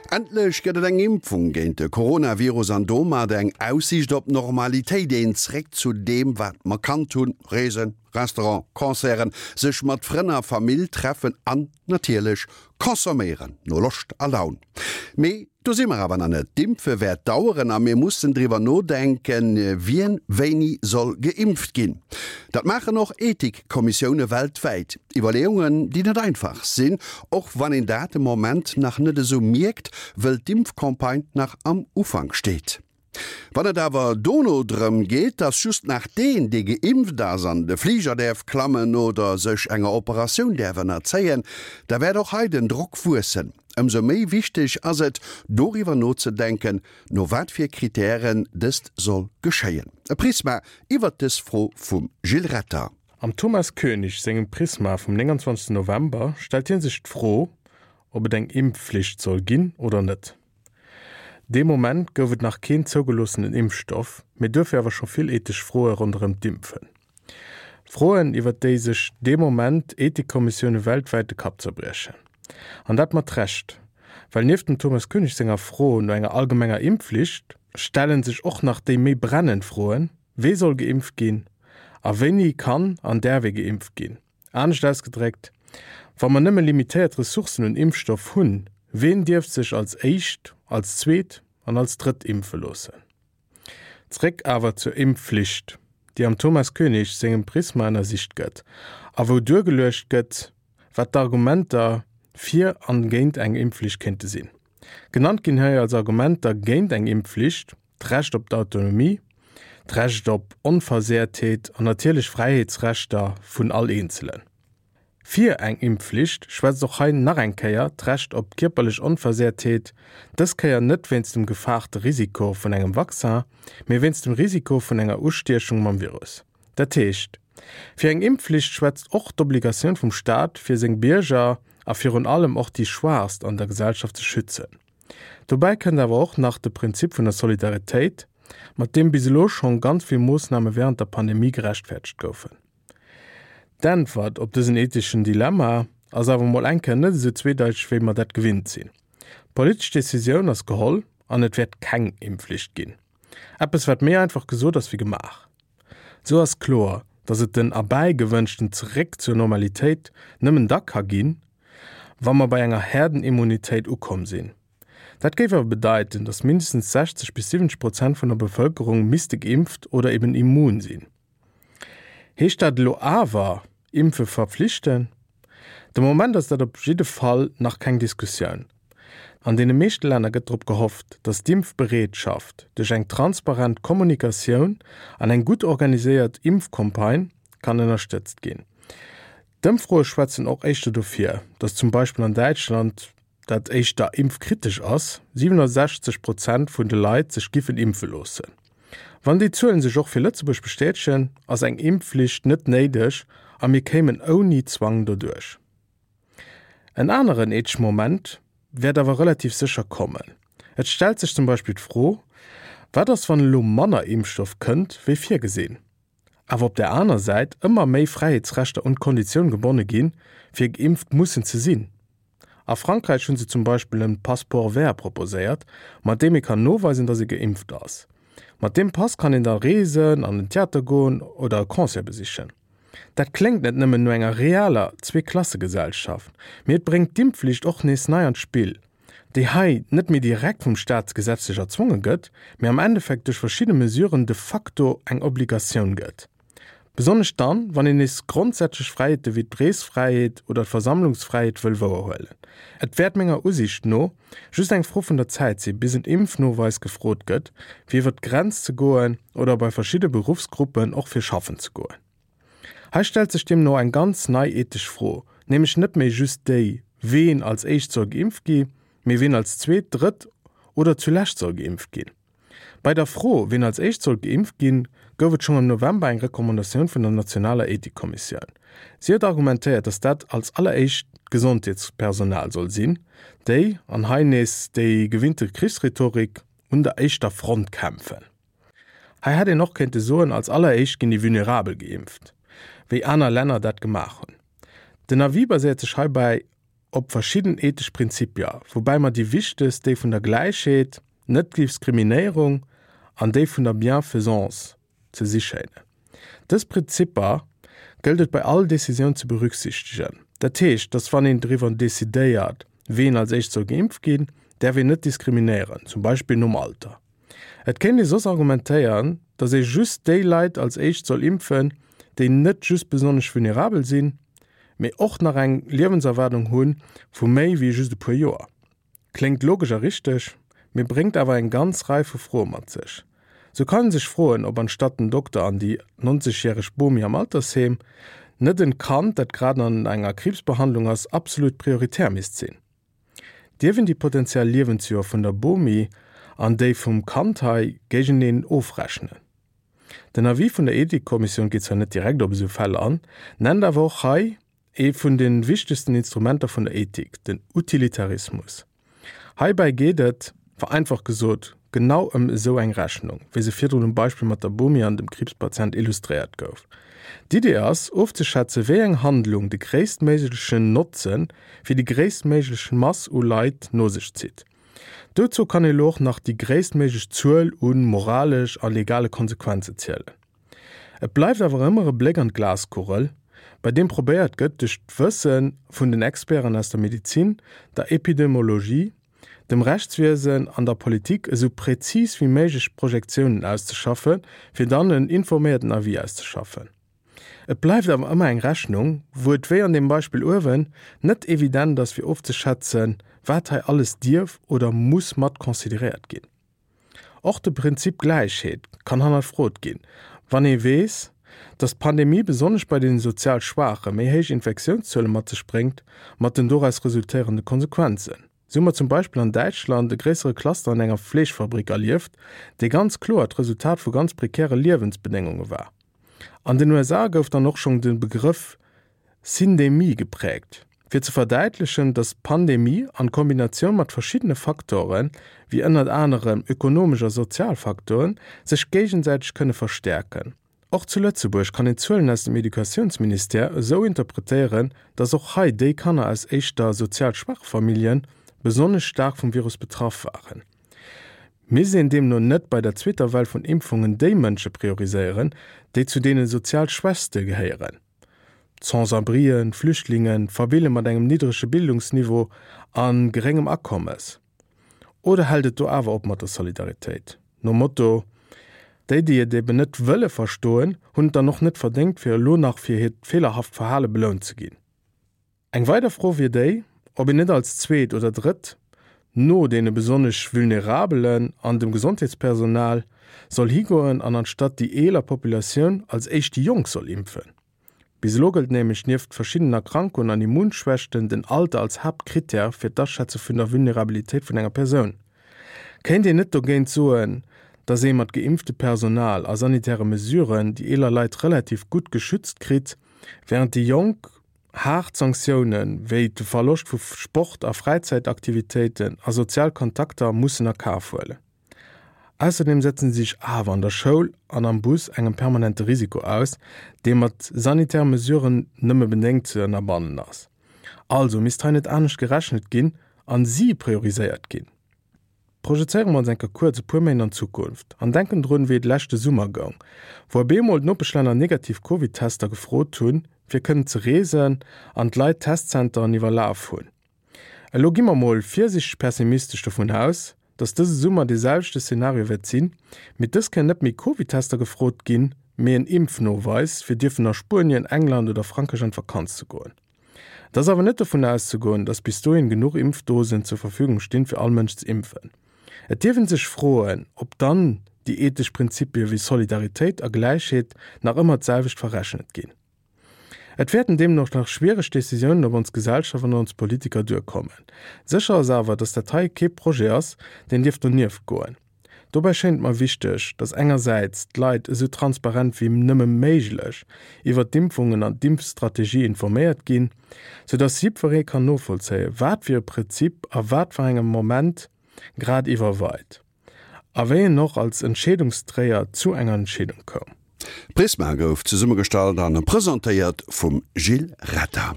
Endlech gëtt et eng Impfung géint de Coronavirus an domat eng Aussiicht op Normalitéit, een Zréck zu deem wat mer kannt hunn, Reesen, Restaurant, Concerten, sech mat Frënn a Famill treffen an natierlech consomméieren no Loscht a Laun. Mee do si mer awer nach net. D'Impfe wäert daueren a mir mussen driwwer nodenken, wien wéini soll geimpft ginn. Dat maachen och Ethikkommissioune weltwäit. Iwwerleeungen, déi net einfach sinn, och wann een dat de Moment nach net esou mierkt, wëll d'Impfcampagne nach am Ufank steet. Wann et awer dono drëm geet, dass just nach deen, dee geimpft ass, an de Fliger däerf klammen oder sech enger Operatioun däerf ënnerzéien, da wäert och hei den Drock wuessen. Ëmsou méi wichteg ass et, doriwwer nozedenken, no wat fir Kritären dëst soll geschéien. E Prisma iwwert dës Fro vum Gilles Retter. Am Thomas Koenig sengem Prisma vum 29 November stellt hie sech d'Fro, ob et eng Impfflicht soll ginn oder net. Dee Moment gouf et nach keen zougeloossenen Impfstoff, mee duerfir awer scho vill ethesch Froe ronderëm d'Impfen. Froen, iwwer déi sech dee Moment Ethikkommissioune weltwäit de Kapp zerbriechen. An dat mat Recht, well nieft dem Thomas Koenig senger Fro no enger allgemenger Impfflicht, stelle sech och nach déi méi brennend Froen, Wee soll geimpft ginn a wéini kann an däerf ee geimpft ginn? Anescht ausgedréckt, Wa mer nëmme limitéiert Ressourcen un Impfstoff hunn, ween dierf sech als éischt, als zweet an als drëtt impfe loossen? Zréck awer zur Impfflicht, déi am Thomas Koenig sengem Prisma ënnersicht gëtt a wou duergeluecht gëtt, wat d'Argumenter fir an géint eng Impfflicht kéinte sinn. Genannt ginn hei als Argumenter géint eng Impfflicht, d'Recht op d'Autonomie, d'Recht op Onversehrtheet an natierlech Fräiheetsrechter vun all Eenzelen. Fir eng Impfflicht schwätzt och hei nach eng Kéier d'Recht op kierperlech Onversehrtheet, dës Kéier net wéinst dem gefaarte Risiko vun engem Vaccin, mee wéinst dem Risiko vun enger Ustiechung mam Virus. Dat heescht, fir eng Impfflicht schwätzt och d'Obligatioun vum Staat, fir seng Bierger a virun allem och déi Schwaachst an der Gesellschaft ze schützen. Dobäi kënnt awer och nach de Prinzip vun der Solidaritéit, mat deem bis elo schonn ganz vill Moossname wärend der Pandemie gerechtfäerdegt goufen. D'Äntwert op dësen etheschen Dilemma ass awer mol eng Kéier net esou zweedeiteg, wéi mer dat gewinnt sinn. D'politesch Decisioun ass geholl an et wäert keng Impfflicht ginn. Eppes, wat méi einfach gesot ass wéi gemaach. Esou ass kloer, datt et den erbäigewënschten Zeréck zur Normalitéit nëmmen da ka ginn, wa mer bei enger Herdenimmunitéit ukomm sinn. Dat géif awer bedeiten, datt mindestens 60 bis 70 Prozent vun der Bevëlkerung misste geimpft oder eben immun sinn. Heescht dat elo awer, Impfe verpflichten? De Moment ass dat op jidde Fall nach keng Diskussioun. An deene meeschte Länner gëtt drop gehofft, datt d'Impfbereetschaft duerch eng transparent Kommunikatioun an eng gutt organiséiert Impfcampagne kann ënnerstëtzt ginn. D'Ëmfroe schwätzen och éischter dofir, datt zum Beispill an Däitschland, dat éischter impfkritesch ass, 67 Prozent vun de Leit sech giffen impfe loossen. Wann déi Zuelen sech och fir Lëtzebuerg bestätegen, ass eng Impfflicht net néideg a mir kéimen ouni Zwang doduerch. En aneren ethesch Moment wäert awer relativ sécher kommen. Et stellt sech zum Beispill d'Fro, Wat ass wann elo manner Impfstoff kënnt wéi virgesinn, awer op där aner Säit ëmmer méi Fräiheetsrechter un d'Konditioun gebonne ginn, fir geimpft mussen ze sinn? A Frankräich hunn se zum Beispill en Passeport vert proposéiert, mat deem ee kann noweisen, datt ee geimpft ass. Mat deem Pass kann een da reesen, an den Theater goen oder e Concert besichen. Dat kléngt net nëmmen no enger realer Zweeklassegesellschaft, mee et bréngt d'Impfflicht och nees nei an d'Spill, déi hei net méi direkt vum Staat gesetzlech erzwonge gëtt, mee am Endeffekt duerch verschidde Mesuren de facto eng Obligatioun gëtt. Besonnesch dann, wann een nees grondsätzlech Fräiheete wéi d'Reesfräiheet oder d'Versammlungsfräiheet wëll wouerhuelen. Et wäert menger Usiicht no just eng Fro vun der Zäit si bis en Impfnoweis gefrot gëtt, fir iwwer d'Grenz ze goen oder bei verschidde Beruffsgruppen och fir schaffen ze goen. Hei stellt sech deemno eng ganz nei ethesch Fro, nämlech net méi just déi, ween als éischt soll geimpft gi, mee ween als zweet, drëtt oder zulescht soll geimpft ginn. Bei der Fro, wien als éischt sollt geimpft ginn, gouf et schonn am November eng Recommandatioun vun der nationaler Ethikkommissioun. Si huet argumentéiert, datt dat als alleréischt d'Gesondheetspersonal soll sinn, déi, an hei nees déi gewinnte Krichsrhetorik, un der éischter Front kämpfen. Hei hätt een och kéinte soen, als alleréischt ginn déi Vulnerabel geimpft, wéi aner Länner dat gemaach hunn. Den Avis baséiert sech heibäi. op verschidden ethesch Prinzipier, woubäi mer déi wichtegst déi vun der Gläichheet, Net-Diskriminéierung an déi vun der Bienfaisance ze si schéinen. Dës Prinzipper gëllt et bei all Decisioun ze berücksichtegen. Dat heescht, dass wann een driwwer decidéiert, ween als éischt soll geimpft ginn, däerf een net diskriminéieren, zum Beispill nom Alter. Et kéint ee soss argumentéieren, dass ee just déi Leit als éischt soll impfen, déi net just besonnesch vulnerabel sinn, mee och nach eng Liewenserwaardung hu vu méi wéi just e puer Joer. Kléngt logesch a richteg, mee bréngt awer eng ganz Rei vu Froe mat sech. Sou kann een sech froen, ob anstatt den Dokter an déi 90 järeg Bomi am Altersheem, net en Kand, dat grad an enger Kriibsbehandlung ass, absolut prioritär misst sinn. Dierf een déi potentiell Liewensjoer vun der Bomi an déi vum Kand hei géigeneen ofrechnen? Den Avis vun der Ethikkommissioun geet zwar net direkt op esou Fäll an, nennt awer och hei Ee vun de wichtegsten Instrumenter vun der Ethik, den Utilitarismus. Heibäi geet et, vereinfacht gesot, genau ëm esou eng Rechnung, wéi se virdrun um Beispill mat der Bomi an dem Kriibspatient illustréiert gouf. D'Idee ass, ofzeschätze wéi eng Handlung de gréisstméiglechen Notze fir déi gréisstméiglech Mass u Leit no sech zitt. Dozou kann ee lo och nach déi gréisstméiglech Zuel u moralesch a legale Konsequenze zielen. Et bleift awer ëmmer e Bléck an d'Glaskugel, bei deem probéiert gëtt, duerch d'Wësse vun den Experten aus der Medezin, der Epidemiologie, dem Rechtswiesen an der Politik esou präzis wéi méiglech Projektiounen auszeschaffen, fir dann en informéierten Avis auszeschaffen. Et bleift awer ëmmer eng Rechnung, wou et, wéi an deem Beispill uewen, net evident ass fir ofzeschätzen, wat hei alles dierf oder muss mat consideréiert ginn. Och de Prinzip Gläichheet kann hannerfrot ginn, wann ee weess, datt d'Pandemie besonnesch bei den sozial Schwaache méi héich Infektiounszuele mat sech bréngt, mat den doraus resultéierende Konsequenzen. Sou hu mer zum Beispill an Däitschland e gréissere Cluster an enger Fleeschfabrik erlieft, dee ganz kloer d'Resultat vu ganz prekäre Liewensbedéngunge war. An den USA gouf dann och schonn de Begrëff Syndemie gepräägt, fir ze verdäitlechen, datt d'Pandemie an Kombinatioun mat verschiddene Faktoren, wéi ënnert anerem ökonomesch a sozial Faktoren, sech géigesäiteg kënne verstäerken. Och zu Lëtzebuerg kann een d'Zuelen aus dem Educatiounsministère esou interpretéieren, datt och hei déi Kanner aus éischter sozial schwache Famillje besonnesch staark vum Virus betraff waren. Misst een deemno net bei der zweeter Well vun Impfungen déi Mënsche prioriséieren, déi zu deene sozial Schwächste gehéieren? D'Sans-abrien, d'Flüchtlingen, d'Famille mat engem niddrege Bildungsniveau a geréngem Akommes? Oder hält et do awer op mat der Solidaritéit? Nom Motto, Déi, déi et eben net wëlle verstoen, hunn et dann och net verdéngt, fir elo nach fir hiert feelerhaft Verhale belount ze ginn. Eng weider Fro wier déi, ob een net als zweet oder drëtt, no deene besonnesch Vulnerabelen an dem Gesondheetspersonal, soll higoen an anstatt déi eeler Populatioun als éischt déi Jonk soll impfen. Bis elo gëllt nämlech nieft verschiddenen Erkrankungen an Immunschwächten den Alter als Haaptkrittär fir d'Aschätze vun der Vulnerabilitéit vun enger Persoun. Kéint een net dogéint soen, datt ee mat geimpfte Personal a sanitäre Mesuren déi eeler Leit relativ gutt geschützt kritt, wärend déi Jonk Haart Sanktioune wéi de Verloscht vu Sport a Fräizäitaktivitéiten a sozial Kontakter mussen a Kaf huelen. Ausserdeem setzen si sech awer an der Schoul an am Bus engem permanente Risiko aus, dee mat sanitäre Mesuren nëmme bedéngt ze ënnerbannen ass. Also misst hei net anescht gerechnet ginn an si prioriséiert ginn? Projezéiere mer ons eng Kéier kuerz e puer Méint an d'Zukunft an denken drun, wéi et leschte Summer goung, wou op eemol d'Nopeschlänner negativ Covid-Tester gefrot hunn, fir kënnen ze reesen an d'Leit d'Testzenteren iwwerlaf hunn. Elo gi mer mol virsiichteg pessimistesch dovun aus, dass dëse Summer dee selwechte Szenario wäert sinn, mee dës Kéier net méi Covid-Tester gefrot ginn, mee en Impfnoweis, fir dierfen a Spuenien, England oder Frankräich an d'Vakanz ze goen. Et ass awer net dovun auszegoen, datt bis dohin genuch Impfdosen zur Verfügung stinn, fir all Mënsch ze impfen. Et dierf een sech froen, ob dann déi ethesch Prinzipie wéi Solidaritéit a Gläichheet nach ëmmer d'selwecht verrechnet ginn. Et wäerten deemno och nach schwiereg Decisiounen op ons Gesellschaft an ons Politiker duerkommen. Sécher ass awer, datt dat hei kee Projet ass, deen dierf donieft goen. Dobäi schéint et mer wichteg, datt engersäits d'Leit esou transparent wéi nëmme méiglech iwwert d'Impfungen an d'Impfstrategie informéiert ginn, sou datt jiddweree kann novollzéien, wat fir e Prinzip a wat fir engem Moment grad iwwerweit a wéi en och als Entscheedungsdréier zu enger Entscheedung koum. Prisma gouf zesummegestallt an presentéiert vum Gilles Retter.